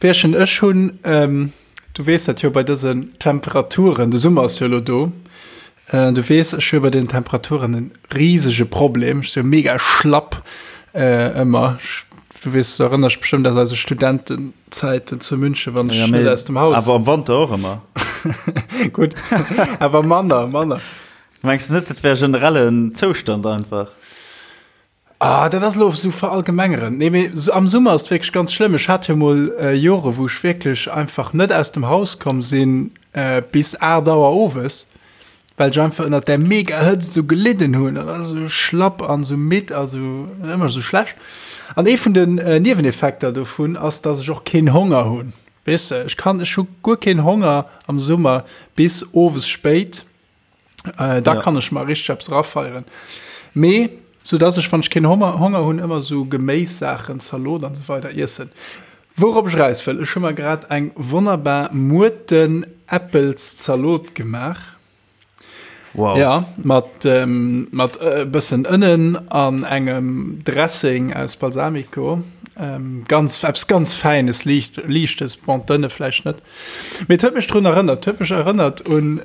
Pierchen, ech hunn, du weess dat jo, bei dësen Temperaturen, de Summer ass jo elo do, du weess, ech hu bei den Temperaturen en risege Problem, ech si jo mega schlapp ëmmer. Du weess, du erënners dech bestëmmt aus eise Studentenzäiten zu München, wann ech net aus dem Haus. Awer am Wanter och ëmmer. Gutt, awer manner, manner. Mengs du net, dat wär generellen Zoustand einfach? Ah, dat ass elo esou verallgemengerend. Nee, mee am Summer ass et wierklech ganz schlëmm. Ech hat jo mol Jore, wou ech wierklech einfach net aus dem Haus komm sinn bis 8 Auer owes, well ech einfach ënnert där mega Hëtzt esou gelidden hunn an esou schlapp an esou midd a sou ëmmer esou schlecht. An ee vun den Nieweneffekter dovun ass, dass ech och keen Honger hunn. Weess de, ech kann, ech hu guer keen Honger am Summer bis owes spéit. Äh, da ja. kann ech mal richtig eppes rafeieren. Mee, so dass ech, wann ech keen Honger, Honger hunn, ëmmer so Geméissaachen, Zalot an so weider iessen. Wourop ech raus wëll, ech hu mer grad eng wonnerbar Muerten-Äppels-Zalot gemaach. Wow. Ja, mat, ähm, mat e bëssen Ënnen an engem Dressing aus Balsamico. Ähm, ganz, eppes ganz Fäines, liicht, Liichtes, bon, d'Ënne vläicht net. Mee et huet mech drun erënnert, et huet mech erënnert un,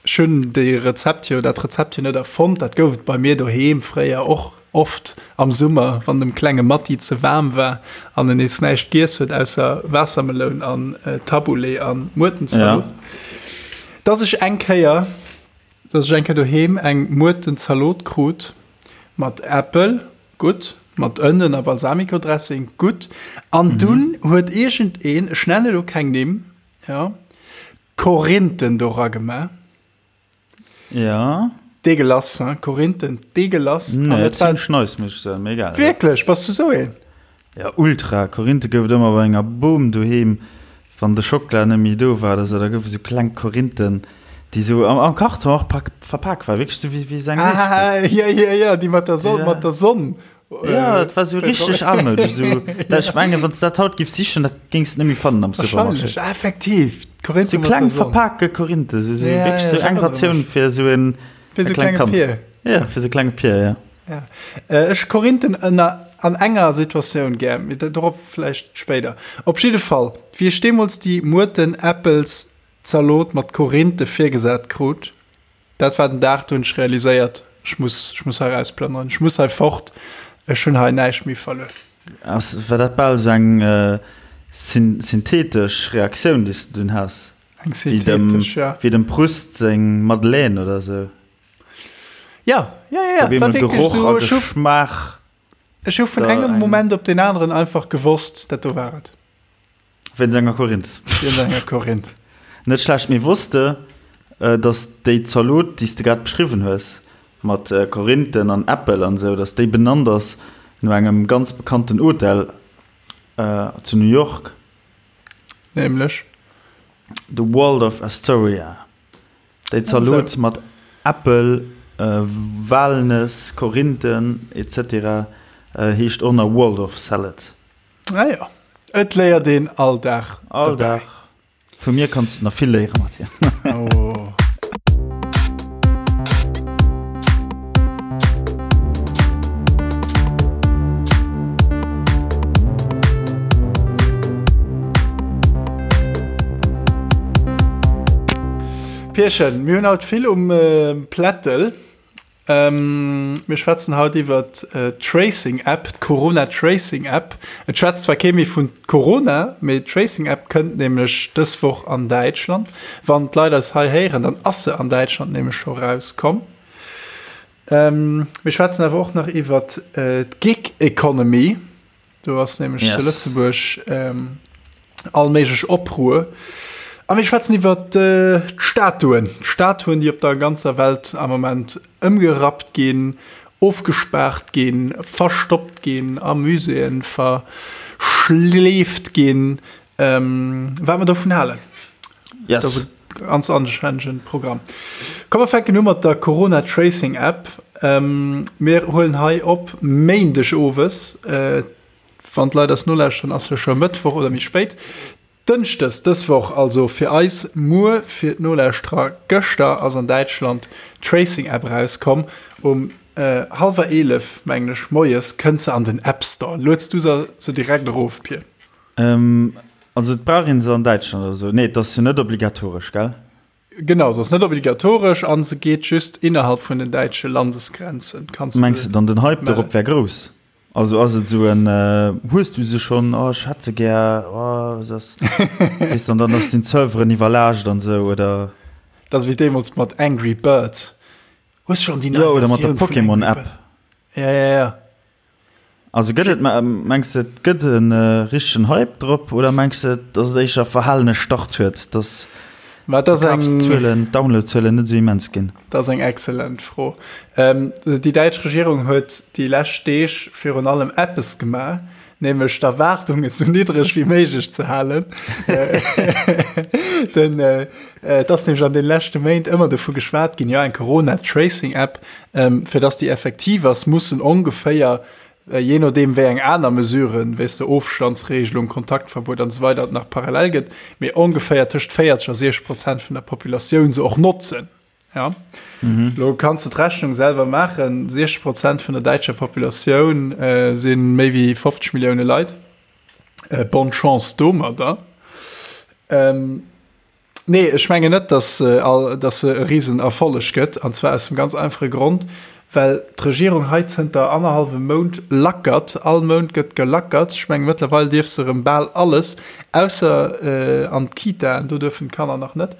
ech hunn déi Rezept jo, dat Rezept jo net erfonnt, dat gouf et bei mir doheem fréier och oft am Summer, wann dem klenge Matti ze waarm war an en nees näischt giess huet ausser Waassermeloun an Taboulé an Muertenzalot, dass ech eng Kéier, dass ech eng Kéier doheem eng Muertenzalot krut mat Äppel, Gutt, mat Ënnen a Balsamico-Dressing, gutt. An dunn huet iergendeen, ech nenne elo keng Nimm, jo, Korinthen dora gemaach. Ja. Deegelass, hein, Korinthen, deegelass. Nee, et war zimmlech nice, muss ech soen, mee egal. Wierklech? Bass du sou een? Ja, ultra. Korinthe gouf et ëmmer bei enger Bom doheem. Wann de Schockela net méi do war oder sou, da goufe sou kleng Korinthen, déi sou am, am Karton och pak, verpak waren, wierklech sou wéi, wéi sou eng Ah, Séissegkeet. ja, ja, ja, déi mat der Sonn, mat der Sonn. Ja, et war sou richteg almoudesch, sou, dat, ech mengen, wann s de dat haut giffs sichen, dat géings de net méi fannen am Supermarché. Wahrscheinlech, effektiv, d'Korinthe Sou mat kleng der Sonn. verpake Korinthe, sou, sou Ja, wierklech ja, sou ech eng erënnere Ratioun mech. fir sou en, Fir e sou klengt klenge Kand. Pier. Ja, fir sou e klenge Pier, ja. Ja. Ech Korinthen ënner an enger Situatioun gär, mee dorop vläicht spéider. Op jidde Fall, wéi ech deemools déi Muerten-Äppels-Zalot mat Korinthe virgesat krut, dat war den Dag, do hunn ech realiséiert, ech muss, ech muss hei erausplënneren, ech muss hei fort, ech hunn hei näischt méi verluer. Ass, war dat bal esou eng synthetesch Reaktioun, déi s de dunn has? Eng synthetesch, ja. Wéi dem Proust seng Madeleine oder esou? Ja, ja, ja, ja. War Geroch so, a Geschmaach. Ech hu vun engem Moment op den aneren einfach gewosst, dat do war et. Wéinst enger Korinth. Wéinst enger Korinth. Net schlecht, mee wosst de, dass déi Zalot, déi s de grad beschriwwen hues, mat Korinthen an Äppel an esou, dass déi benannt ass no engem ganz bekannten Hotel zu New York? Nämlech? De Waldorf Astoria. Déi Zalot mat Äppel, Walnëss, Korinthen etc. Heescht och nach Waldorf Salad. Ah jo, et léiert een all Dag All Dag. Vu mir kanns de nach vill léieren, Mathieu. Oh. Pierchen, mir hunn haut vill um Plättel. Mir schwätzen haut iwwer d'Tracing App, d'Corona Tracing App. Et schwätzt zwar kee méi vun Corona, mee d'Tracing App kënnt nämlech dës Woch an Däitschland. Wann d'Leit eis hei héieren, dann ass se an Däitschland nämlech scho rauskomm. Mir schwätzen awer och nach iwwer d'Gig Economy. Do ass nämlech yes. zu Lëtzebuerg ähm, all méiglech Opruer. A mir schwätzen iwwer äh, d'Statuen. D'Statuen, déi op der ganzer Welt am Moment ëmgerappt ginn, ofgespaart ginn, verstoppt ginn, a Muséeën verschleeft ginn. Ähm, wat mer dovun halen. Yes. Dat ass e ganz anständigen Programm. Komm, mer fänken u mat der Corona Tracing App. Ähm, mir huelen hei op Méindeg owes. Äh, wann d'Leit eis nolauschteren, ass jo scho Mëttwoch oder méi spéit. Dënschdes dës Woch, also fir eis muer, fir d'Nolauschterer gëschter, ass an Däitschland d'Tracing App erauskomm. Um äh, hallwer 11, mengen ech, moies kënnt se an den App Store. Lueds du se direkt erof, Pir? Ähm, Also et brauch een se an Däitschland oder sou? Nee, et ass jo net obligatoresch, gell? Genau, se ass net obligatoresch an se geet just innerhalb vun den däitsche Landesgrenzen. Kanns de Mengs de dann den Hype dorop wär grouss? Also ass et sou en Hues du se schonn? Oh ech hätt se gär, oh was ass? Weess de, an dann ass den Serveren iwwerlaascht an sou, oder? Dat ass wéi deemools mat Angry Birds. Hues schonn déi nei Versioun vun Angry Birds? Jo, oder mat der Pokémon App. Ja, ja, ja. Also gëtt et, mengs de et gëtt e richtegen Hype drop oder mengs de datt et éischter verhalene Start huet, datt d'Verkafszuelen, d'Downloadzuelen net esou immens ginn? Dat ass eng excellent Fro. Déi däitsch Regierung huet déi lescht Deeg virun allem eppes gemaach, nämlech d'Erwaardungen esou niddreg wéi méiglech ze halen. Den, et ass nämlech an de leschte Méint ëmmer dovu geschwat ginn, jo eng Corona-Tracing-App, fir dass déi effektiv ass, mussen ongeféier, jee nodeem wéi eng aner Mesuren, wéi s de Ofstandsregelung, Kontaktverbuet an esou weider et nach parallel gëtt, mee ongeféier tëscht 40 a 60 Prozent vun der Populatioun se och notzen. Ja. Mhm. Lo kanns du d'Rechnung selwer maachen, 60 Prozent vun der däitscher Populatioun äh, si méi wéi 50 Millioune Leit. Äh, bonne Chance domadder. Ähm, nee, ech menge net, dass, äh, all, dass se e Riesenerfolleg gëtt, an zwar aus dem ganz einfache Grond, well d'Regierung hei zënter annerhallwem Mount lackert. All Mount gëtt gelackert. Ech menge mëttlerweil dierf se erëm bal alles, ausser äh, an d'Kitaen, do duerfen d'Kanner nach net.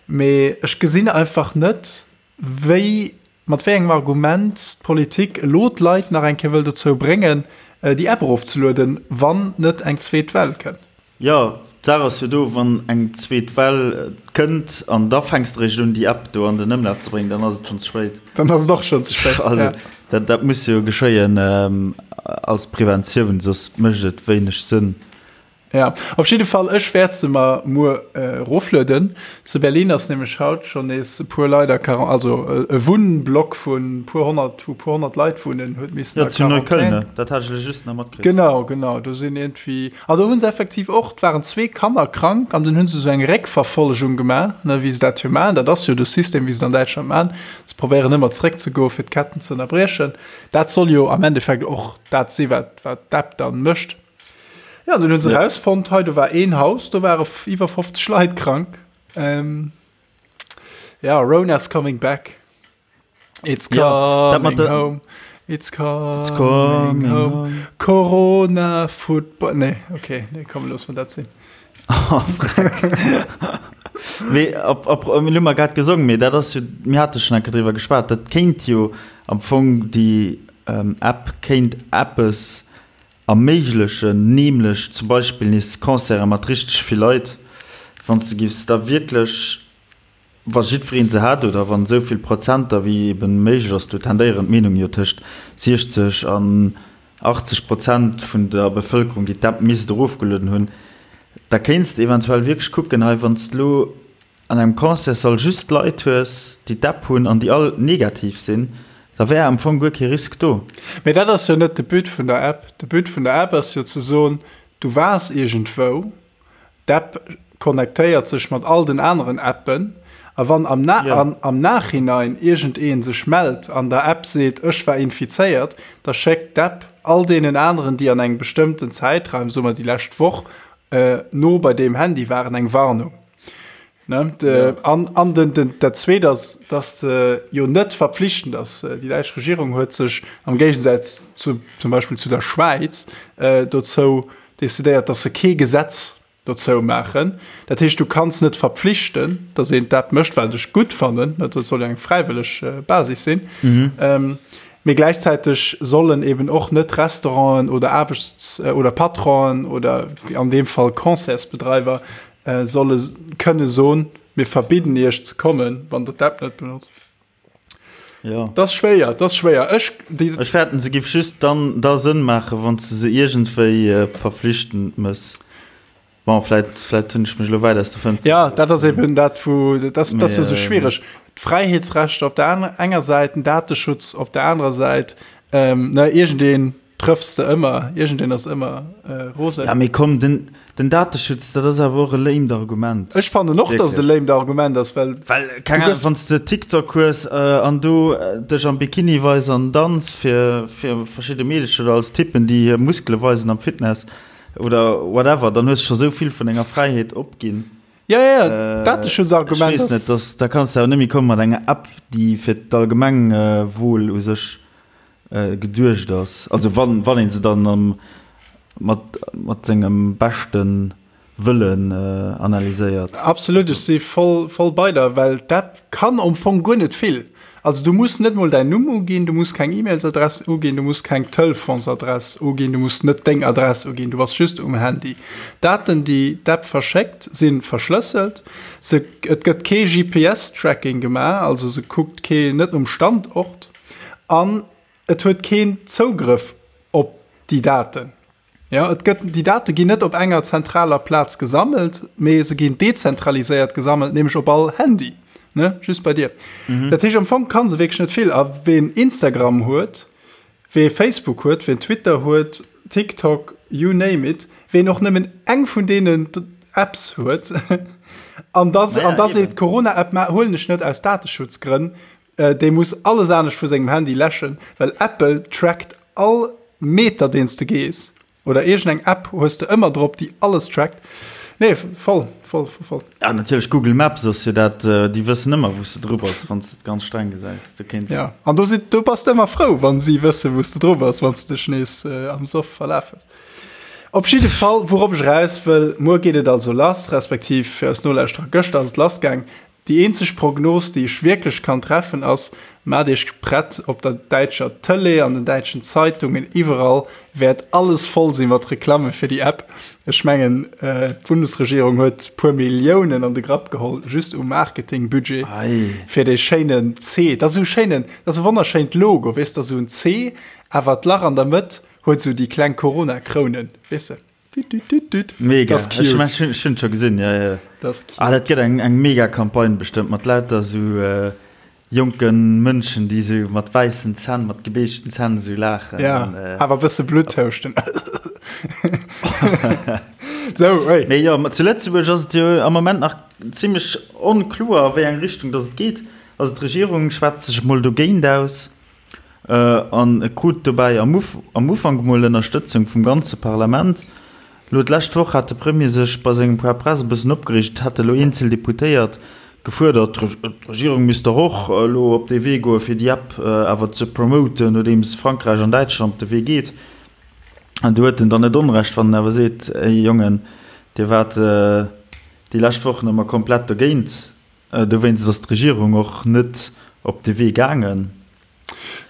Mee ech gesinn einfach net, wéi, mat wéi engem Argument d'Politik elo d'Leit nach eng Kéier wëll dozou bréngen, déi App erofzelueden, wann net eng zweet Well kënnt. Jo, d'Saach ass jo do, wann eng zweet Well kënnt an da fänks de eréischt un, déi App do an den Ëmlaf ze bréngen, dann ass et schonn ze spéit. Dann ass et och schonn ze spéit, jo. Also dat, dat muss jo geschéien als Preventioun, soss mécht et wéineg Sënn. Ja, op jidde Fall, ech wäert se mer muer eroflueden. Zu Berlin ass nämlech haut schonn nees e puer Leit a Quaran-, also e Wunnblock vun puer 100, wou puer 100 Leit wunnen, huet missen a Quarantän. Ja, zu Neukölln, ne? Dat hat ech elo just nach matkritt. Genau, genau, do sinn iergendwéi, an do hu se effektiv och, et waren zwee Kanner krank an dunn hu se esou eng Réckverfollegung gemaach, ne, wéi se dat jo maachen. Dat ass jo de System, wéi se et an Däitschland maachen. Se probéieren ëmmer zeréckzegoen, fir d'Ketten ze ënnerbriechen. Dat soll jo am Endeffekt och dat si wat, wat d'App dann mécht. Ja, dann hunn se ja. rausfonnt, hei do war een Haus, do ware iwwer 50 Leit krank. Ähm, ja, Rona's coming back. It's coming ja, home. It's coming, It's coming home. home. Corona Football. Nee, okay, nee, komm, los mal dat sinn. Oh, Mee op, op, mir hu mer grad gesongen, mee dat ass jo, mir hate schonn eng Kéier driwwer geschwat, dat kéint jo am Fong déi ähm, App kéint eppes erméiglechen, nämlech zum Beispill nees Concerte mat richteg vill Leit, wann s de giffs da wierklech, wa jiddweree se hätt oder wann esou vill Prozenter wéi eben méiglech ass, do tendéieren d'Meenungen jo tëscht 60 an 80 Prozent vun der Bevëlkerung, déi d'App misst erofgelueden hunn, da kéints de eventuell wierklech kucken, hei wann s de elo an engem Concertssall just Leit hues, déi d'App hunn an déi all negativ sinn, da wär am Fong guer kee Risk do. Mee dat ass jo net de But vun der App. De But vun der App ass jo ze soen, du waars iergendwou, d'App connectéiert sech mat all den aneren Appen a wann am am Nachhinein iergendee sech mellt an der App seet, ech war infizéiert, da schéckt d'App all deenen aneren, déi an engem bestëmmten Zäitraum, soe mer déi lescht Woch, no bei deem Handy waren, eng Warnung. Ne? De, ja. An, an den, den, dat Zweet ass, dass se jo net verpflichtend ass. Äh, déi däitsch Regierung huet sech am Géigesaz zu, zum Beispill zu der Schwäiz äh, dozou decidéiert, dass se kee Gesetz dozou maachen. Dat heescht, du kanns net verpflichten, dass een d'App mécht, wat ech gutt fannen, dat soll jo eng fräiwëlleg äh, Basis sinn. Mhm. Ähm, mee gläichzäiteg sollen eben och net Restauranten oder Aarbechts- äh, oder Patronen oder an deem Fall Concertsbedreiwer solle kënne soen, mir verbidden iech ze kommen, wann der d'App net benotzt. Ja. Dat ass schwéier, dat ass schwéier. Ech, déi. Ech fäerten, se giff just dann da Sënn maachen, wann s de se iergendwéi verflichtend mëss. Bon, vläit, vläit hunn ech mech elo wäit aus der Fënster Ja, dat ass eben dat, wou, dat ass, dat ass jo sou schwiereg. D'Fräiheetsrechter op der enger Säit, den Dateschutz op der anerer Säit, ne, iergendeen Trëffs de ëmmer, iergendeen ass ëmmer rosen. Ja mee komm, den, den Dateschutz, dat ass awer och e lamed Argument. Ech fannen och, dass et e lamed Argument ass, well. Well, keng Ahnung, wann s de TikTok hues an do dech am Bikini weis an danz fir, fir verschidde Meedecher oder als Typen, déi hir Muskele weisen am Fitness. Oder whatever, dann hues du scho sou vill vun denger Fräiheet opginn. Ja, ja, ja, Dateschutzargument Ech weess net, dass, da kanns du awer net méi komme mat enger App, déi fir d'Allgemengwuel u sech geduecht ass. Also wann, wann ee se dann am, mat, mat sengem beschte Wëllen analyséiert. Absolut, ech si voll, voll bei der, well d'App kann am Fong guer net vill. Also du muss net mol däin Numm uginn, du muss keng E-Mailsadress uginn, du muss keng Telefonsadress uginn, du muss net deng Adress uginn, du bass just um Handy. D'Daten, déi d'App verschéckt, si verschlësselt. Se, et gëtt kee GPS-Tracking gemaach, also se kuckt kee net um Standort an et huet keen Zougrëff op déi Daten. Jo, et gëtt, déi Date ginn net op enger zentraler Plaz gesammelt, mee se ginn dezentraliséiert gesammelt, nämlech op all Handy, ne, just bei dir. Mhm. Dat heescht, am Fong kann se wierklech net vill. A ween Instagram huet, wee Facebook huet, ween Twitter huet, TikTok, you name it, ween och nëmmen eng vun deenen Apps huet, an da, an da seet, Corona-App huelen ech net aus Dateschutzgrënn, Dee muss alles anescht vu sengem Handy läschen, well Apple trackt all Meter deen s de gees. Oder iergend eng App hues de ëmmer drop, déi alles trackt. Nee, voll, voll, voll, voll. Ja, natierlech, Google Maps ass jo dat, déi wëssen ëmmer wou s de dru bass, wann s de et ganz streng gesäis. Du kéints. Ja, an do si, do bass de ëmmer frou, wann si wëssen, wou s de dru bass, wann s de dech nees am Soff verlaf hues. Op jidde Fall, wourop ech eraus wëll, muer geet et also lass, respektiv fir eis Nolauschterer, gëschter ass et lassgaang. Déi eenzeg Prognos, déi ech wierklech kann treffen, ass, Maacht Iech prett, op der däitscher Tëlee, an den däitschen Zeitungen, iwwerall wäert alles voll si mat Reklamme fir déi App. Ech mengen, d'Bundesregierung huet puer Milliounen an de Grapp geholl, just u Marketingbudget fir dee schéinen C. Dat ass esou e schéinen, dat ass e wonnerschéint Logo, weess de, esou en C, awer d'Lach an der Mëtt huet esou déi kleng Corona-Krounen, weess de. Mega. Ech hunn et scho gesinn, ja, ja. Ah, dat gëtt eng, eng mega Campagne bestëmmt mat lauter esou äh, jonke Mënschen, déi esou mat wäissen Zänn, mat gebeeschten Zänn esou laachen. Ja, an, äh, awer e bësse Blutt houschten. Sou, hey. Mee jo, zu Lëtzebuerg ass et jo am Moment nach zimmlech onkloer, a wéi eng Richtung dass et geet. Also d'Regierung schwätzt sech emol dogéint aus. An e krut dobäi am Ufank emol Ënnerstëtzung vum ganze Parlament. Elo d'lescht Woch hat de Premier sech bei sengem Point presse e bëssen opgereegt. Et hätte elo eenzel Deputéiert gefuerdert, d'Regierung misst dach och elo op dee Wee goen, fir déi App awer ze promoten, nodeems Frankräich an Däitschland de Wee geet. An do huet en dann net Onrecht, wann en awer seet, Ey Jongen, dir waart déi lescht Wochen ëmmer komplett dogéint. Dowéinst ass d'Regierung och net op de Wee gaangen.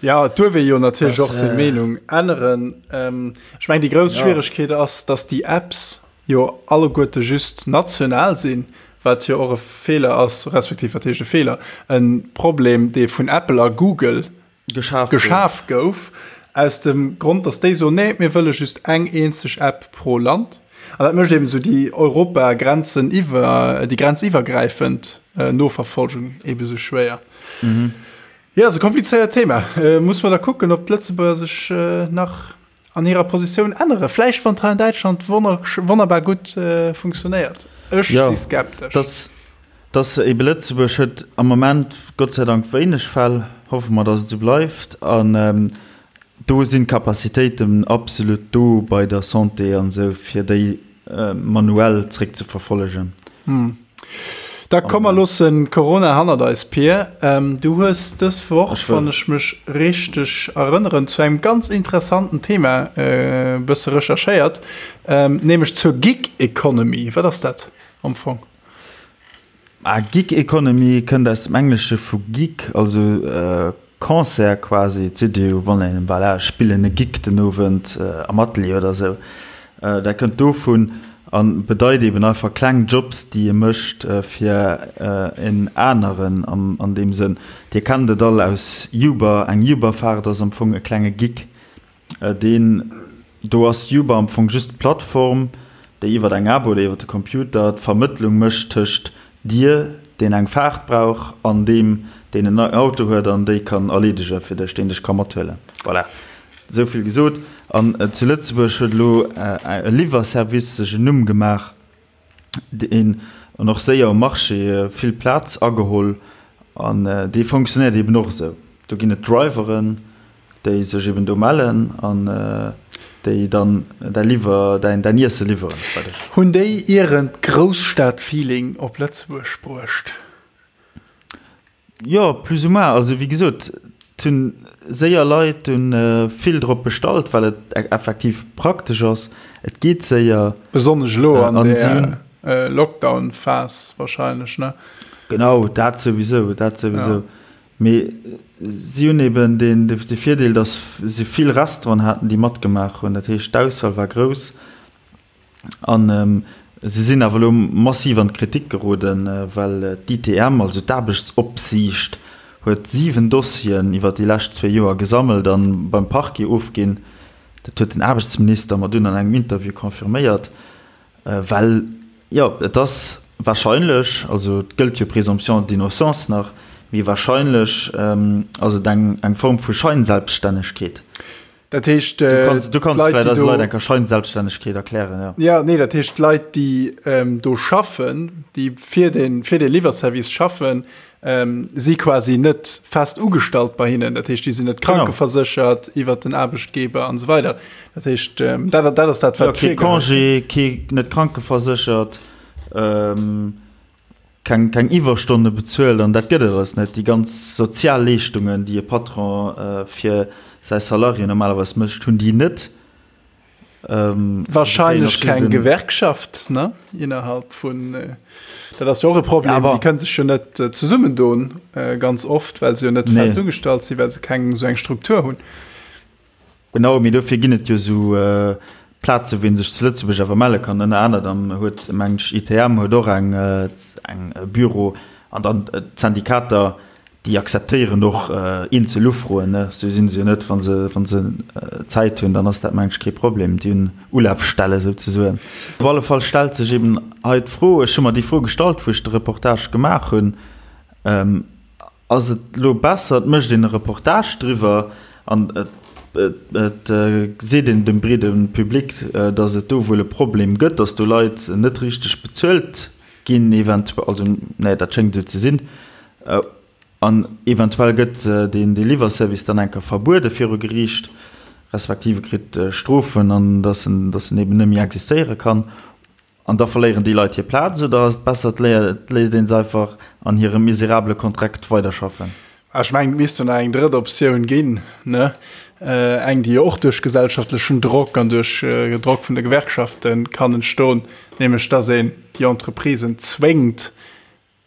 Ja, et duerf ee jo natierlech och seng Meenung änneren. Ech mengen, déi grouss Schwieregkeet ass, datt déi Apps jo alleguerte just national sinn, wat jo och e Feeler ass, respektiv wat heescht e Feeler, e Problem, dee vun Apple a Google geschaf gouf, aus dem Grond, datt déi soen, nee, mir wëlle just eng eenzeg App pro Land. An dat mécht eben esou déi Europagrenzen iwwer, déi grenziwwergräifend Noverfolgung eben esou schwéier. Jo, ass e komplizéiert Thema. Muss mer da kucken, ob d'Lëtzebuerger sech nach an hirer Positioun änneren. Vläicht wann et hei an Däitschland wonnerbar gutt funktionéiert. Ech si skeptesch. Dass, dass ebe Lëtzebuerg huet am Moment Gott sei Dank wéineg Fäll, hoffe mer, dass et esou bleift. An do sinn d'Capacitéiten absolut do bei der Santé an esou, fir déi manuell zréckzeverfollegen. Da komm mer loossen Corona hannert eis, Pir. Du hues dës Woch, wann ech mech richteg erënneren, zu engem ganz interessanten Thema e bësse recherchéiert, nämlech zur Gig Economy. Wat ass dat am Fong? Gig Economy kënnt aus dem Englesche vu Gig, also Concert quasi, et seet ee jo wann een, voilà, ech spillen e Gig den Owend am Atelier oder esou, dat kënnt dovun a bedeit eben einfach kleng Jobs, déi ee mécht fir en aneren an deem Sënn. Dir kennt et all aus Uber, eng Uber-Faart ass am Fong e klenge Gig. Deen do ass Uber am Fong just d'Plattform, déi iwwer eng App oder iwwer de Computer d'Vermëttlung mécht tëscht dir, deen eng Faart brauch, an deem, deen en Auto huet an déi kann erleedege fir dech, deen dech ka mathuelen. Voilà, esou vill gesot. An zu Lëtzebuerg huet elo e Liwwerservice sech en Numm gemaach, deen an och séier um Marché vill Plaz ageholl an dee fonctionnéiert eben och esou. Do ginn et Driveren, déi sech eben do mellen an. Déi dann däi Liwwer, däin, däin Iesse liwweren bei dech. Hunn déi ieren d'Grousstad-Feeling op Lëtzebuerg bruecht? Jo, plus ou moins. Also wéi gesot, et hunn séier Leit hunn vill drop bestallt, well et effektiv praktesch ass. Et geet séier. Besonnesch elo an der Lockdown-Phas wahrscheinlech, ne? Genau, dat souwisou, dat souwisou. Mee si hunn eben de Virdeel, datt se vill Restauranten haten, déi matgemaach hunn. Dat heescht, d'Auswahl war grouss. A se sinn awer elo massiv an d'Kritik geroden, well d'ITM, also d'Aarbechtsopsiicht, huet 7 Dossieren iwwer déi lescht zwee Joer gesammelt a beim Parquet ofginn. Dat huet den Aarbechtsminister mer dunn an engem Interview confirméiert. Well, jo, et ass wahrscheinlech, also et gëllt jo Présomption d'innocence nach, mee wahrscheinlech ass et eng eng Form vu Scheinselbststännegkeet. Dat heescht, Du kanns, du kanns vläicht eise Leit eng Kéier Scheinselbststännegkeet erklären, jo. Jo, nee, dat heescht, d'Leit, déi do schaffen, déi fir de fir de Liwwerservice schaffen, si quasi net fest ugestallt bei hinnen, dat heescht, déi sinn net krankeverséchert iwwert den Aarbechtgeber an esou weider. Dat heescht, dat, dat ass dat, wat ja, kee Congé, kee net krankeverséchert, ähm, keng, keng Iwwerstonne bezuelt an dat gëtt et alles net. Déi ganz sozial Leeschtungen, déi e Patron äh, fir säi Salarié normalerweis mécht, hunn déi net. Ähm, Wahrscheinlech keng Gewerkschaft ne innerhalb vun äh, dat ass jo och e Problem, ja, déi kënne sech jo net äh, zesummendoen äh, ganz oft, well se jo net nee. fest ugestallt sinn, well se keng sou eng Struktur hunn. Genau, mee dofir ginn et jo sou äh, Plaze wou een sech zu Lëtzebuerg awer melle kann. Ënner anerem huet meng ech ITM huet och eng äh, eng äh, Büro an dann äh, d'Syndikater Déi akzeptéieren och eenzel Ufroen, ne? Sou sinn se jo net. Wa se, wa se Zäit hunn, dann ass dat, mengen ech, kee Problem. Déi hunn Ulafstelle souzesoen. Op alle Fall stellt sech eben hei d'Fro, ech hu mer déi Fro gestallt, wou ech de Reportage gemaach hunn, Ass et elo besser, et mécht een e Reportage driwwer an et seet een dem breede Public, datt et do wuel e Problem gëtt, datt do Leit net richteg bezuelt ginn eventuell, also nee, dat schéngt esou ze sinn, An eventuell gëtt deen Liwwerservice dann eng Kéier verbuede viru Geriicht, respektiv e kritt Strofen an datt en datt en eben net méi existéiere kann. An da verléieren déi Leit hir Plaz. Oder ass et besser, et léisst ee se einfach an hirem miserabele Kontrakt weiderschaffen? Ech mengen, et misst jo nach eng drëtt Optioun ginn, ne? Eng, déi jo och duerch gesellschaftlechen Drock an duerch Drock vun de Gewerkschafte kann entstoen, nämlech datt een déi Entreprisen zwéngt,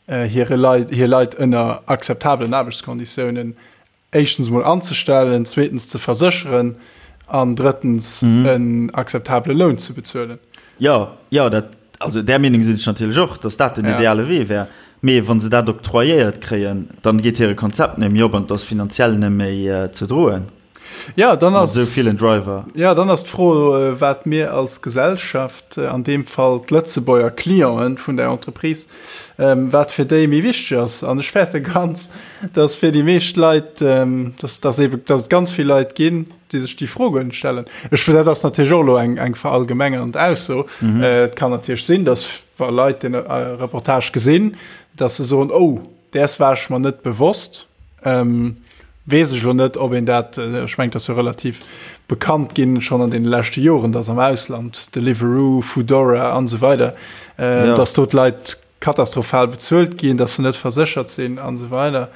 hire Leit, hir Leit ënner akzeptabelen Aarbechtskonditiounen éischtens emol anzestellen, zweetens ze versécheren an drëttens en akzeptabele Loun ze bezuelen. Jo, jo, dat, also där Meenung sinn ech natierlech och, datt dat den ideale Wee wär. Mee wa se dat octroyéiert kréien, dann geet hire Konzept net méi op an et ass finanziell net méi ze droen. Ja, dann ass, esou villen Driver. Ja, dann ass d'Fro, wat mir als Gesellschaft, an deem Fall d'Lëtzebuerger Clienten vun där Entreprise, wat fir déi méi wichteg ass. An ech fäerte ganz, dass fir déi meescht Leit, dass, dass ebe, dass et ganz vill Leit ginn, déi sech déi Fro guer net stellen. Ech, dat ass natierlech och elo eng, eng verallgemengernd Ausso. Et kann natierlech sinn, dass wa Leit dee Reportage gesinn, dass se soen, Oh, däers war ech mer net bewosst. Weess ech elo net, ob een dat, ech mengen, et ass jo relativ bekannt ginn, schonn an deene leschte Joren, dass am Ausland, Deliveroo, Foodora an esou weider, dass do d'Leit katastrophal bezuelt ginn, dass se net verséchert sinn an esou weider.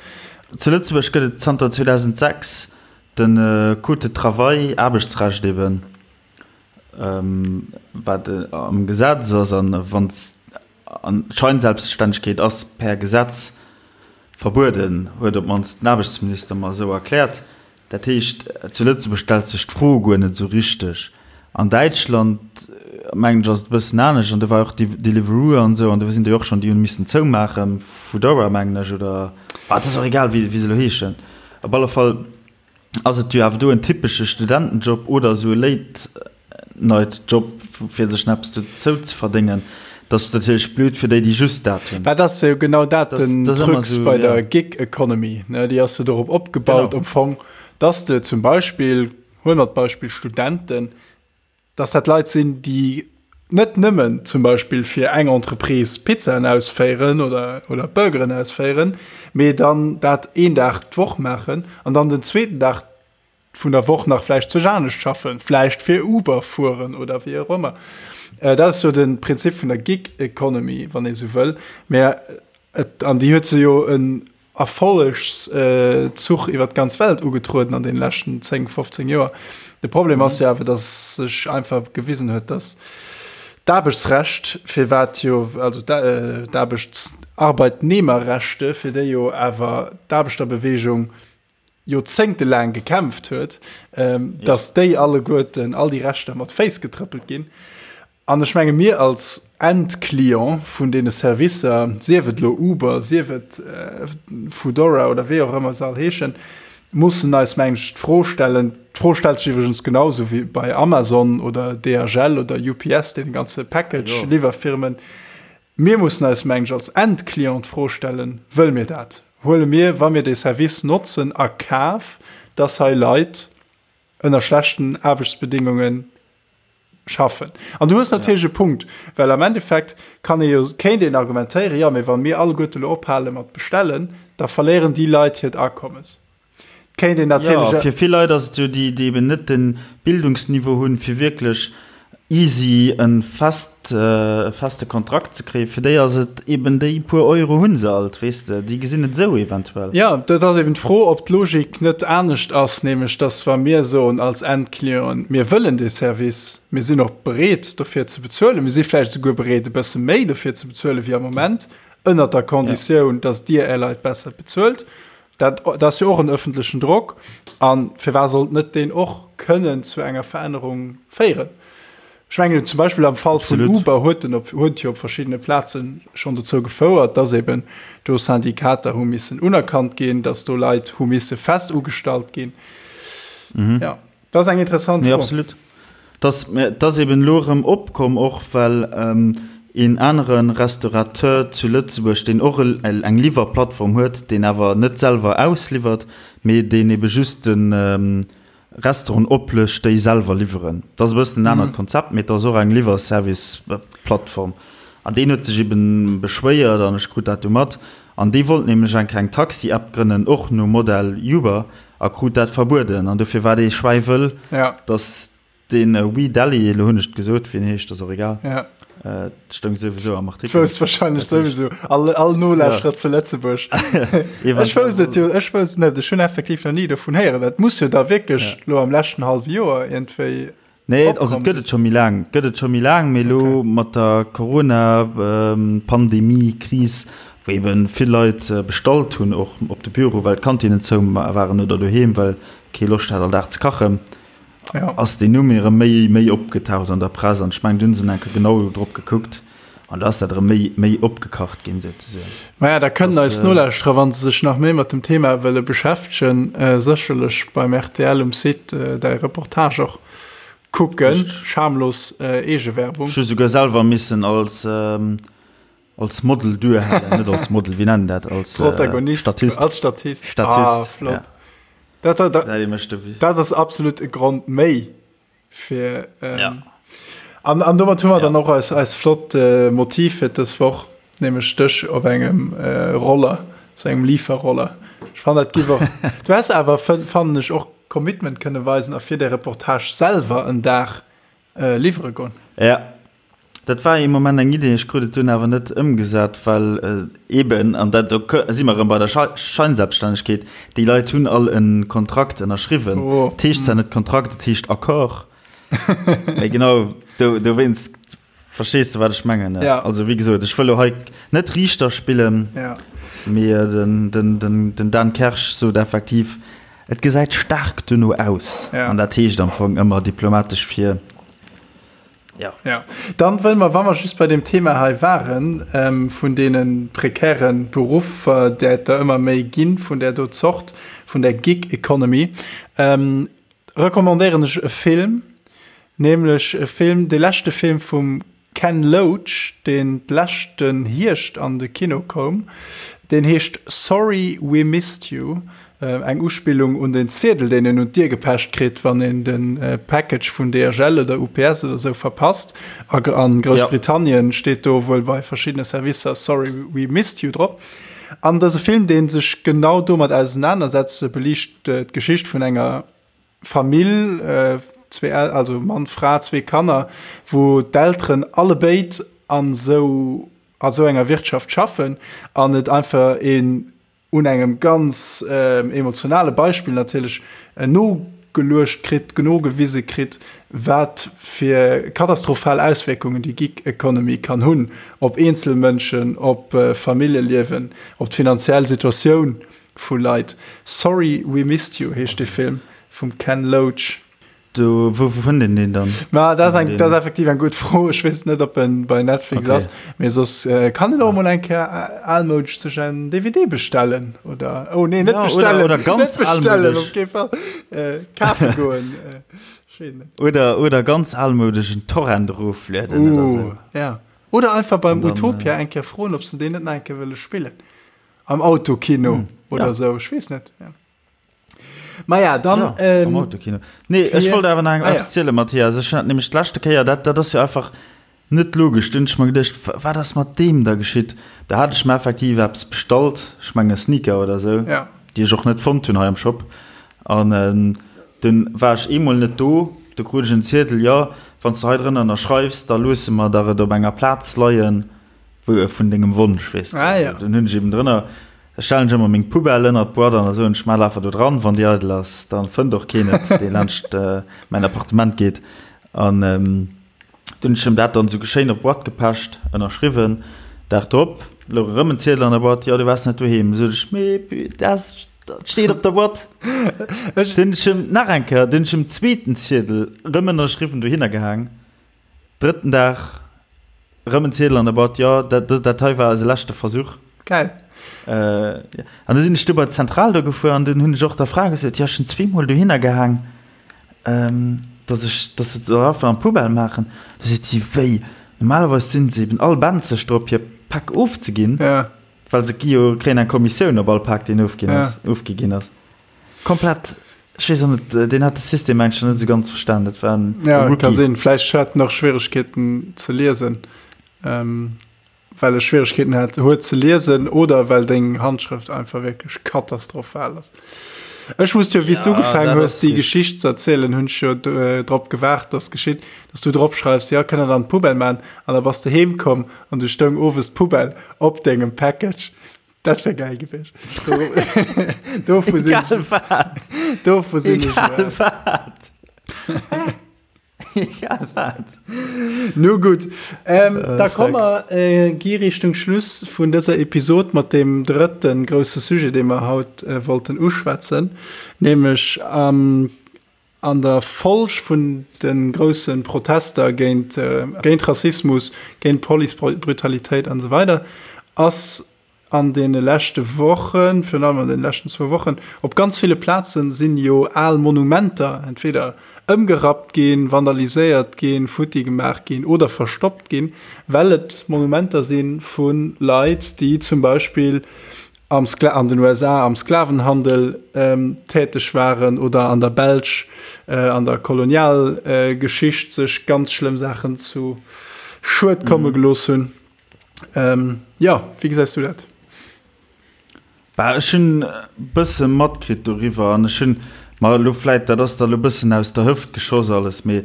Zu Lëtzebuerg gëtt et zanter 2006 de Code de travail, Aarbechtsrecht eben, wat am Gesetz ass an wann An d'Scheinselbststännegkeet ass per Gesetz verbueden, huet op d'mannst den Aarbechtsminister mer esou erkläert. Dat heescht, zu Lëtzebuerg stellt sech d'Fro guer net esou richteg. An Däitschland, mengen ech, ass et e bëssen anescht. An do war och Deliveroo an esou, an do sinn déi och schonn, déi hunn missen zoumaachen, Foodora, mengen ech, oder, ah, et ass och egal, wéi se elo heeschen. Op alle Fall Ass et jo awer do en typesche Studentenjob oder esou e Late-Night-Job, fir sech nach eppes dozou ze verdéngen. Dat ass natierlech blöd fir déi, déi just dat hunn. Mä dat ass jo genau dat den Krux bei der Gig Economy, ne? Déi ass jo dorop opgebaut am Fong, dass de zum Beispill, huele mer d'Beispill Studenten, dass dat Leit sinn, déi net nëmmen zum Beispill fir eng Entreprise Pizzaen ausféieren oder, oder Burgeren ausféieren, mee dann dat een Dag d'Woch maachen an dann den zweeten Dag vun der Woch nach vläicht zwech anescht schaffen, vläicht fir Uber fueren oder wéi och ëmmer. Dat ass jo de Prinzip vun der Gig Economy, wann ee sou wëll. Mä et, an déi huet se jo en Erfollegszuch iwwer d'ganz Welt ugetrueden an deene leschten 10, 15 Joer. De Problem ass jo awer, datt sech einfach gewisen huet, datt d'Aarbechtsrecht, firwat jo, also d'Aarbechts-, Arbeitnehmerrechte, fir déi jo awer d'Aarbechterbewegung joerzéngtelaang gekämpft huet, datt déi alleguerten, all déi Rechter mat Féiss getrëppelt ginn. An ech menge mir als Endclient vun deene Servicer, sief et elo Uber, sief et Foodora oder wéi och ëmmer se all heeschen, mussen eis, mengen ech, d'Fro stellen, d'Fro stellt sech iwwregens genau esou wéi bei Amazon oder DHL oder UPS, deene ganze Package-Liwwerfirmen, mir mussen eis, mengen ech, als Endclient d'Fro stellen, Wëlle mir dat? Huele mir, wa mir dee Service notzen, a Kaf, dass hei Leit ënner schlechten Aarbechtsbedingungen schaffen. An du hues natierlech e Punkt, well am Endeffekt kann ee jo, kéint een argumentéieren, jo, mee wa mir alleguerte elo ophale mat bestellen, da verléieren déi Leit hiert Akommes. Kéint een natierlech. Jo, fir vill Leit ass et jo, déi, déi eben net de Bildungsniveau hunn, fir wierklech easy e fest, e feste Kontrakt ze kréien, fir déi ass et eben, déi puer Euro hu se alt, weess de, déi gesinn et esou eventuell. Jo, dat ass eben d'Fro, ob d'Logik net anescht ass, nämlech dass wa mir soen als Endclienten, mir wëllen dee Service, mir sinn och bereet dofir ze bezuelen, mir si vläicht esouguer bereet e bësse méi dofir ze bezuelen wéi am Moment, ënnert der Konditioun, dass Dir Är Leit besser bezuelt, dat ass jo och en öffentlechen Drock, a firwat sollt net deen och kënnen zu enger Verännerung féieren? Ech mengen zum Beispill am Fall vun Uber huet en op, huet jo op verschiddene Plaze schonn dozou gefouert, dass eben do Syndikater hu missen unerkannt ginn, dass do Leit hu misse fest ugestallt ginn. Mhm. Ja, dat ass eng interessant Fro. Nee, absolut. Dat dat ass eben elo erëm opkomm, och well ähm, een anere Restaurateur zu Lëtzebuerg, deen och eng Liwwerplattform huet, deen awer net selwer ausliwwert, mee deen ebe just den, ähm, Restauranten oplécht, déi selwer liwweren. Dat ass e bëssen en anert Konzept, mee et ass och eng Liwwerservice-Plattform. An deen huet sech eben beschwéiert, an ech krut dat du mat, an dee wollt nämlech eng kleng Taxi-App grënnen, och nom Modell Uber, a krut dat verbueden. An dofir war dee schwäiwëll, dass Den We Dally, elo hunn ech et gesot, wéi en heescht, ass och egal. Ja. Äh, stoung souwisou am Artikel. Wousst wahrscheinlech souwisou all, all Nolauschterer ja. zu Lëtzebuerg. ech wousst et jo, ech wousst net, ech hunn effektiv nach ni dovun héieren. Dat muss jo da wierklech ja. lo am leschten hallwe Joer iergendwéi. Nee, also et gëtt et scho méi laang, gëtt et scho méi laang, mee lo okay. mat der Corona-Pandemie, ähm, Kris, wou eben vill Leit äh, bestallt hunn och op de Büro, well d'Kantinen zou waren oder doheem, well kee Loscht hat all Dag ze kachen. Ja. Ass deen Numm erëm méi, méi opgetaucht an der Press an ech mengen, du hunn se enke genau drop gekuckt an da ass dat erëm méi, méi opgekacht ginn souzesoen. Maja, da kënnen eis Nolauschterer, wa se sech nach méi mat dem Thema wëlle beschäftegen, sécherlech beim rtl um Site däi Reportage och kucken. Schamlos Eegewerbung. Ech hu souguer selwer missen als, als Model duerhalen, net als Model, wéi nennen dat, als Protagonist, Statist. Als Statist. Statist, ah, flott. Ja. Dat, dat, dat, dat ass absolut e Grond méi fir ähm, ja. an, an domat hu mer ja. dann och eis, eis flott äh, Motiv fir dës Woch, nämlech dech op engem äh, Roller, so engem Lieferroller. Ech fand dat gi och. Du hast awer fannen ech och Commitment kënne weisen a fir de Reportage selwer en Dag äh, liwwere goen. Ja. Dat war ee Moment eng Idee, ech krut et dunn awer net ëmgesat, well eeben, an dat do si mer erëm bei der Scheinselbststännegkeet, déi Leit hunn all e Kontrakt ënnerschriwwen. Et heescht zwar net Kontrakt, et heescht Accord. Mee genau dowéinst, verstees de wat ech mengen? Also wéi gesot, ech wëll elo hei net Riichter spillen, mee den Dan Kersch sot effektiv, et gesäit staark dono aus. An dat heescht am Fong ëmmer diplomatesch fir, Ja. Ja. Dann wëll mer, wa mer just bei dem Thema hei waren, ähm, vun deene prekären Beruffer, där et der ëmmer méi ginn, vun där do Zort, vun der Gig Economy, ähm, recommandéieren ech e Film, nämlech e Film, de leschte Film vum Ken Loach, deen d'leschten Hierscht an de Kino koum. Deen heescht Sorry We Missed You. Eng Uspillung un den Ziedel, deen een un d'Dier gepecht kritt, wann een de Package vun DHL oder UPS oder sou verpasst. A Groussbritannien steet do wuel bei verschiddene Servicer Sorry we missed you drop. An dëse Film, dee sech genau domat ausenanersetzt, beliicht d'Geschicht vun enger. Famill, zwee El also Mann, Fra, zwee Kanner, wou d'Elteren allebéid an esou a sou enger Wirtschaft schaffen an et einfach een un engem ganz emotionale Beispill natierlech nogeluecht kritt, nogewise kritt, wat fir katastrophal Auswierkungen déi Gig Economy kann hunn op eenzel Mënschen, op Familljeliewen, op d'finanziell Situatioun vu Leit. Sorry We Missed You heescht dee Film vum Ken Loach. Do, wou fënnt een deen dann? Ma dat ass eng, dat ass effektiv eng gutt Fro. Ech weess net, ob en bei Netflix okay. ass. Mee soss äh, kann en och mol eng Kéier äh, almoudesch sech en DVD bestellen oder oh nee, net ja, bestellen, oder, oder ganz net bestellen op kee Fall äh, kafe goen. Äh, ech weess net. Oder, oder ganz almoudesch en Torrent eroflueden uh, oder sou. Ja. Oder einfach beim dann, Utopia äh, eng Kéier froen, ob se deen net nach eng Kéier wëlle spillen. Am Autokino hm, oder ja. sou, ech weess net. Ja. Maja, dann. Ja, ähm, am Autokino. Nee, ech wollt awer nach eng ah, ja. ziele, Matthias. Ech hat nämlech d'leschte Kéier, dat, dat ass jo einfach net logesch. Dunn ech mer geduecht, wat ass mat deem da geschitt? Da hat ech mer effektiv eppes bestallt, ech menge Sneaker oder sou, ja. déi ech och net fonnt hunn hei am Shop. An ähm, dunn war ech eemol net do, du krut ech en Ziedel, jo, wann s de hei drënner ënnerschreifs, da loosse mer der et op enger Plaz leien, wou vun dengem Wonsch, weess de. Ah, ja. Dunn hunn ech eben drënner Da stellen ech ëmmer meng Poubelle ënnert d'Boîte an da soen ech, Maach einfach do dran, wann déi eidel ass, da fënnt och keen et, dee laanscht mäin Appartement geet. An dunn hunn ech him dat dann esou schéin op d'Boîte gepecht, ënnerschriwwen. Dag drop louch erëm en Ziedel an der Boîte, Jo, du waars net doheem. Du sot ech, Mee dat steet op der Boîte. Dunn hunn ech him nach eng Kéier, dunn hunn ech him zweeten Ziedel erëm ënnerschriwwen dohinner gehaang. Drëtten Dag, rëm en Ziedel an der Boîte, jo, dat, dat hei war eise leschte Versuch. Geil. Äh, an da sinn ech du bei d'Zentral do gefuer an dunn hunn ech och der Fra gesot, jo, ech hunn zweemol dohinner gehaang, ähm, dass ech, dass se soll einfach an d'Poubelle maachen. Du seet si, wéi? Normalerweis sinn se eben all benzeg drop, hir Päck ofzeginn, ja. well se gi jo, kréien eng Kommissioun op all Pak, deen ofginn ass, ja. ofgi ginn ass. Komplett, ech weess och net, deen hat de System mengen ech net esou ganz verstan, dat war en Ja, Rookie. ka sinn. Vläicht hat en och Schwieregkeeten ze liesen, ähm, well e Schwieregkeeten hat, huet ze liesen oder well deng Handschrëft einfach wierklech katastrophal ass. Ech muss jo, wéi s du Ja, ugefaangen dat hues, ass déi richtig. Geschicht ze erzielen, hunn ech jo äh, drop gewaart, dass geschitt, dass du drop schreifs, ja, kënnt der an d'Poubelle man, an da bass de heem komm an du stoung owes d'Poubelle op dengem Package. Dat wär geil gewiescht. Dovu sinn Egal wat. Dovu sinn ech Egal wat. Egal wat. Nu gutt. Ähm, äh, da komme mer äh, gi Richtung Schluss vun dëser Episod mat dem drëtten grousse Sujet, dee mer haut äh, wollten uschwätzen, nämlech am An der Folg vun de grousse Protester géint géint Rassismus, géint Policebrutalitéit an esou weider ass an deene leschte Wochen, virun allem an deene leschten zwou Wochen, op ganz ville Plaze sinn jo al Monumenter entweder ëmgerappt ginn, vandaliséiert ginn, futti gemaach ginn oder verstoppt ginn, well et Monumenter si vu Leit, déi zum Beispill am Skla an den USA am Sklavenhandel ähm, täteg waren oder an der Belsch äh, an der Kolonialgeschicht äh, sech ganz schlëmm Saachen zu Schued komme mhm. gelooss hunn. Ähm, ja, wéi gesäis du dat? Bah, ech hunn e bësse matkritt doriwwer an ech hunn mer elo vläit, dat ass da elo e bëssen aus der Hëft geschoss alles, mee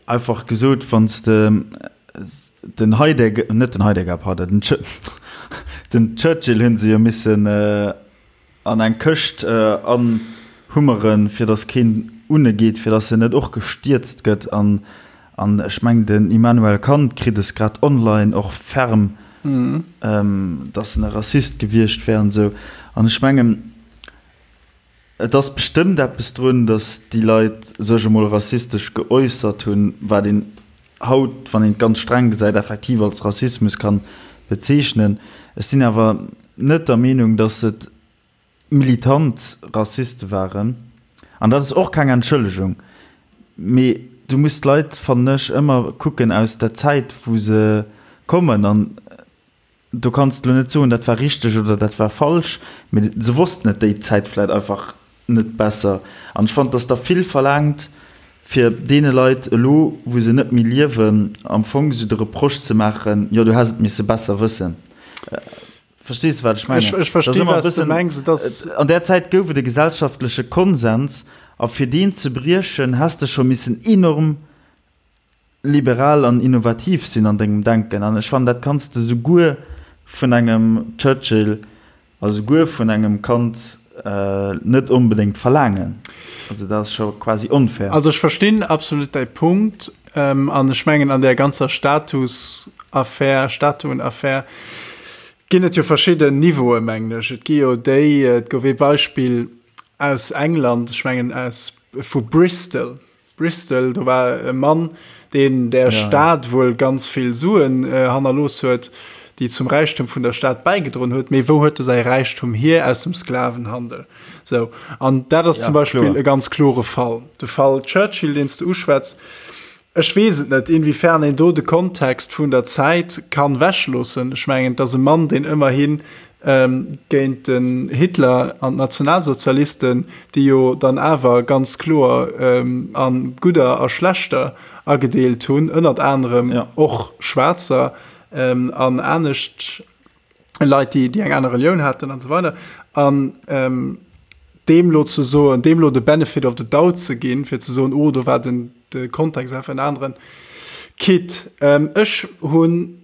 einfach gesot, wann s de Den Heidegger, net den Heidegger, pardon, den, Ch den Churchill hunn se jo missen an eng Këscht anhummeren, fir datt keen unne geet, fir datt en net och gestierzt gëtt. An, an ech mengen, den Immanuel Kant kritt es grad online och ferm, datt en e Rassist gewiescht wär an esou. An ech mengen, Et ass bestëmmt eppes drun, datt déi Leit sech emol rassistesch geäussert hunn, wat een haut, wann een et ganz streng gesäit, effektiv als Rassismus kann bezeechnen. Ech sinn awer net der Meenung, datt et militant Rassiste waren. An dat ass och keng Entschëllegung, mee du muss d'Leit, fannen ech, ëmmer kucken aus der Zäit, wou se kommen. An Do kanns de lo net soen, dat war richteg oder dat war falsch, mee se wossten et déi Zäit vläit einfach net besser. An ech fannen, dass der vill verlaangt, fir deene Leit elo, wou se net méi liewen, am Fong esou de Reproche ze maachen, jo, du häss et misse besser wëssen. Verstees de, wat ech mengen? Ech versti, wat s de mengs. Et ass. An där Zäit gouf et e gesellschaftleche Konsens. A fir deen ze briechen, häss de scho missen enorm liberal an innovativ sinn an dengem Denken. An ech fannen, dat kanns de souguer vun engem Churchill a souguer vun engem Kant net onbedéngt verlaangen. Also dat ass scho quasi onfair. Also ech verstinn absolut däi Punkt an ech mengen an där ganzer Statusaffär, Statuenaffär ginn et jo verschidden Niveaue mengen ech. Et gi jo déi, et gouf ee Beispill aus England, ech mengen aus vu Bristol, Bristol, do war e Mann, deen der Stad wuel ganz vill Suen hannerlooss huet, déi zum Räichtum vun der Stad bäigedroen huet. Mee wou huet e säi Räichtum hier? Aus dem Sklavenhandel. Sou, an dat ass zum Beispill e ganz klore Fall. De Fall Churchill, deen s de uschwätz, ech weess et net, inwiefern een do de Kontext vun der Zäit kann wechloossen. Ech mengen, et ass e Mann, deen ëmmerhin géint den Hitler an d'Nationalsozialisten, déi jo dann awer ganz kloer a gudder a schlechter agedeelt hunn, ënnert anerem och Schwaarzer an anescht Leit, déi eng aner Relioun haten an esou weider. An deem lo ze soen, deem lo de Benefit of the doubt ze ginn, fir ze soen, oh do war den de Kontext einfach en aneren, quitte ech hunn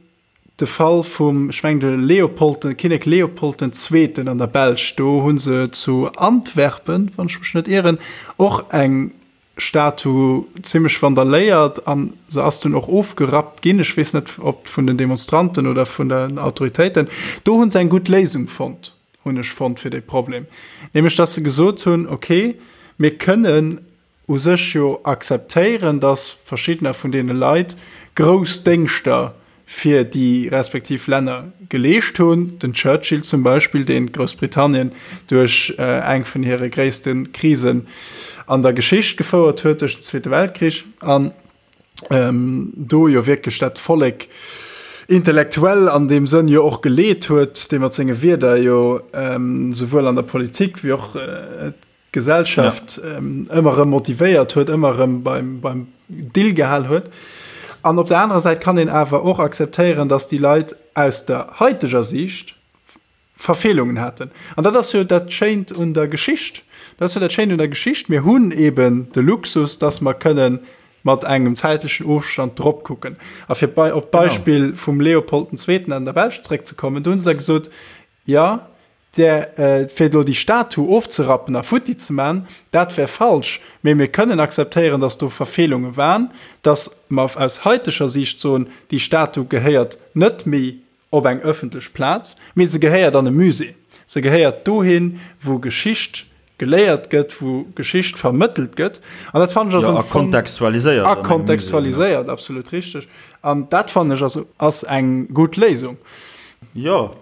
De Fall vum, ech mengen de Leopold, de Kinnek Leopold den Zweeten an der Belsch, do hu se zu Antwerpen, wann ech mech net ieren, och eng Statu zimmlech vandaléiert an se ass dunn och ofgerappt ginn. Ech weess net, ob vun den Demonstranten oder vun den Autoritéiten. Do hu se eng gutt Léisung fonnt, hunn ech fonnt, fir dee Problem, nämlech datt se gesot hunn, okay, mir kënnen u sech jo akzeptéieren, dass verschiddener vun deene Leit grouss Déngschter fir déi respektiv Länner geleescht hunn, den Churchill zum Beispill, deen Groussbritannien duerch eng vun hire gréisste Krisen an der Geschicht gefouert huet, duerch den Zweete Weltkrich, an do jo wierklech dat Vollek intellektuell an deem Sënn jo och geleet huet, dee mat senge Wierder jo souwuel an der Politik wéi och Gesellschaft ëmmer erëm motivéiert huet, ëmmer erëm beim, beim Dill gehal huet. An op der anerer Säit kann een awer och akzeptéieren, datt déi Leit aus der haiteger Siicht Verfeelungen haten. An dat ass jo dat Schéint un der Geschicht. Dat ass jo dat Schéint un der Geschicht. Mir hunn eben de Luxus, datt mer kënnen mat engem zäitlechen Ofstand drop kucken. A fir bei, op d'Beispill vum Leopold den Zweeten an der Belsch zréckzekommen, do hu se da gesot, jo, Där, fir elo déi Statu ofzerappen a futti ze man, dat wär falsch. Mee mir kënnen akzeptéieren, dass do Verfeelunge waren, dass mer aus haiteger Siicht soen, déi Statu gehéiert net méi op eng ëffentlech Plaz, mee se gehéiert an e Musée. Se gehéiert dohin, wou Geschicht geléiert gëtt, wou Geschicht vermëttelt gëtt. An dat fannen ech ass am Fong. A kontextualiséiert. A kontextualiséiert, absolut richteg. An dat fannen ech ass, ass eng gutt Léisung. Jo.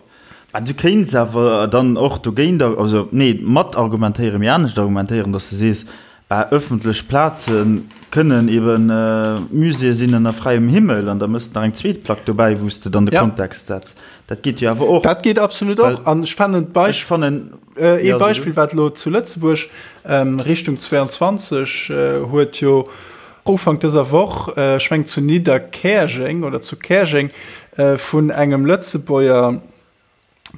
Mä du kéints awer dann och dogéint, also nee, mat argumentéieren, mee anescht argumentéieren, datt s de sees, bah, ëffentlech Plaze kënnen ebe Muséeë sinn ënner fräiem Himmel an da méchs de nach eng zweet Plack dobäi, wou s de dann de Kontext setz. Dat geet jo awer och. Dat geet absolut och. An ech fannen d'Beispill. Ech fannen. Ee Beispill, wat elo zu Lëtzebuerg Richtung 22 huet jo Ufank dëser Woch, ech mengen zu Nidderkäerjeng oder zu Käerjeng, vun engem Lëtzebuerger,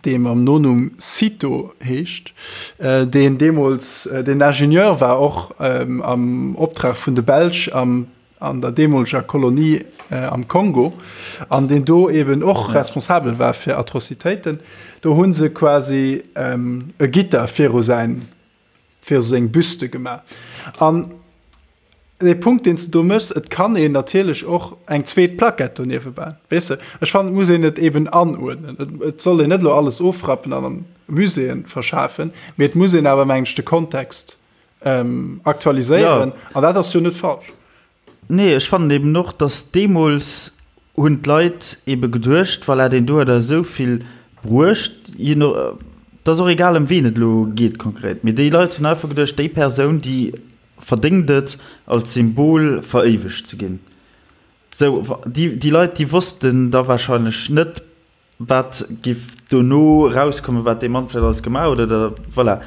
dee mam Nonumm Cito heescht, deen deemools deen Ingenieur war, och am Optrag vun de Belsch am an der deemoleger Kolonie am Kongo, an deen do eben och responsabel war fir Atrocitéiten. Do hu se quasi e Gitter viru säin viru seng Büste gemaach. An dee Punkt, deen s de do méchs, et kann een natierlech och eng zweet Plaquette doniewwe bauen, weess de. Ech fannen, et muss een et eben anuerdnen. Et, et soll een net elo alles ofrappen an an Muséeën verschafen, mee et muss een awer, mengen ech, de Kontext aktualiséieren. An dat ass jo net falsch. Nee, ech fannen eben och, dass deemools hunn d'Leit ebe geduecht, voilà, deen do huet eis esou vill bruecht, je no, et ass och egal ëm wien et elo geet konkret, mee déi Leit hunn einfach geduecht, déi Persoun, déi verdéngt et, als Symbol veréiwegt ze ginn. Sou, déi, déi Leit, déi wossten da wahrscheinlech net, Wat giff dono erauskommen, wat dee Mann vläicht alles gemaach huet oder voilà.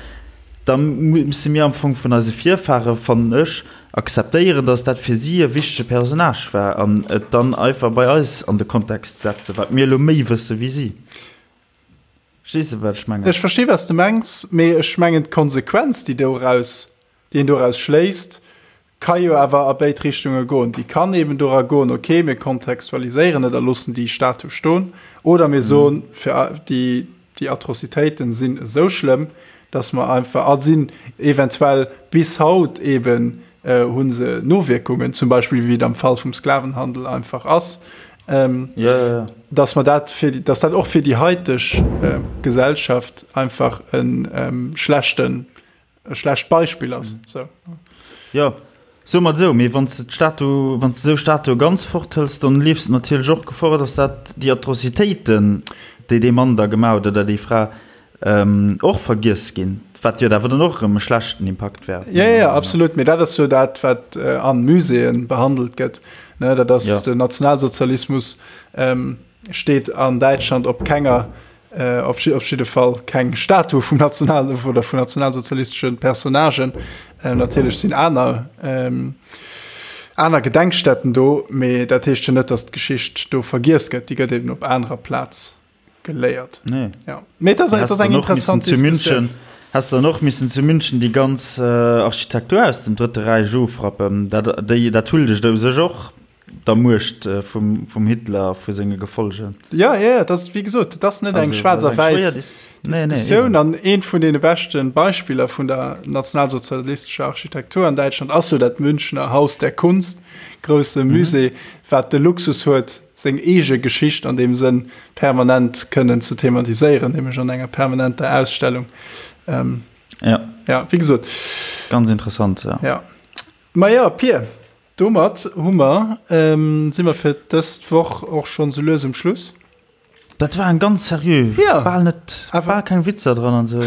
Da musse mir am Fong vun eise Virfahre, fannen ech, akzeptéieren, datt dat fir si e wichtege Personnage war an et dann einfach bei eis an de Kontext setzen, wat mir elo méi wësse wéi si. Verstees de, wat ech mengen? Ech versti wat s de mengs, mee ech mengen d'Konsequenz, déi doraus. déi een doraus schléisst, ka jo awer a béid Richtunge goen. Déi kann eben dora goen, okay, mir kontextualiséieren et a loossen déi Statue stoen, oder mir soen, fir déi, déi Atrocitéiten sinn esou schlëmm, dass mer einfach, a sinn eventuell bis haut eben, hu se Nowierkungen, zum Beispill wéi et am Fall vum Sklavenhandel einfach ass, dass mer dat fir, dass dat och fir déi haiteg Gesellschaft einfach e schlechten, e schlecht Beispill ass. Sou. Jo, soe mer et esou, mee wann s de d'Statu, wann s de esou Statue ganz forthëls, dann leefs de natierlech och Gefor, dass dat déi Atrocitéiten, déi dee Mann da gemaach huet oder déi Fra, och vergiess ginn, wat jo awer dann och erëm e schlechten Impakt wär. Jo, jo, absolut, mee dat ass jo dat, wat an Muséeën behandelt gëtt, ne, dat ass den Nationalsozialismus steet an Däitschland op kenger, op jidde Fall keng Statue vum National oder vun nationalsozialistesche Personnagen. Natierlech sinn aner aner Gedenkstätten do, mee dat heescht jo net, datt d'Geschicht do vergiess gëtt, déi gëtt eben op anerer Plaz geléiert. Nee. Ja. Mee dat ass eng interessant zu München. Häss dann och missen zu München déi ganz äh, Architektur aus dem Drëtte Räich ofrappen. Dat, déi, dat huldegt u sech och der Muecht äh, vum, vum Hitler a vu senge Gefolge. Ja, ja, ja, dat wéi gesot, dat ass net eng schwaarz a wäiss nee, nee, Diskussioun. An eent vun deene beschte Beispiller vun der nationalsozialistescher Architektur an Däitschland ass jo dat Münchner Haus der Kunst, grousse mhm. Musée, wat de Luxus huet, seng eege Geschicht an deem Sënn permanent kënnen ze thematiséieren, nämlech an enger permanenter Ausstellung. Ähm, ja. Ja, wéi gesot. Ganz interessant, ja. Ja. Ma ja, Pir, domat hu mer, ähm, si mer fir dëst Woch och schonn sou lues um Schluss. Dat war eng ganz seriö, ja. bal net, bal keng Witzer dran an sou.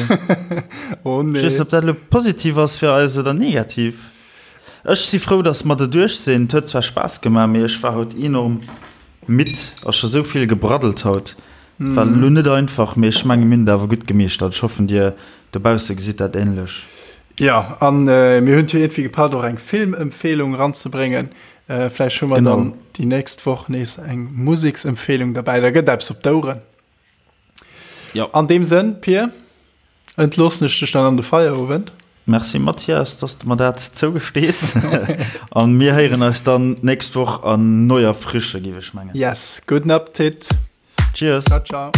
oh nee. Ech weess net, ob dat elo positiv ass fir eis oder negativ. Ech si frou, dass mer derduerch sinn. Et huet zwar Spaass gemaach, mee ech war haut enorm midd a scho sou vill gebraddelt haut. Et war elo net einfach, mee ech menge mir hunn et awer gutt gemeeschtert. Ech hoffen, dir dobausse gesitt dat änlech. Jo, a mir hunn et jo iergendwéi gepackt, och eng Filmempfehlung eranzebréngen. Vläicht hu mer dann déi nächst Woch nees eng Museksempfehlung derbäi. Da gëtt eppes op d'Oueren. Jo. An deem Sënn, Pir, entloossen ech dech dann an de Feierowend. Merci Mathias, dass de mer dat zougestees. An mir héieren eis dann d'nächst Woch an neuer Frische, géif ech mengen. Yes, gudden Appetit. Cheers. Ciao, ciao.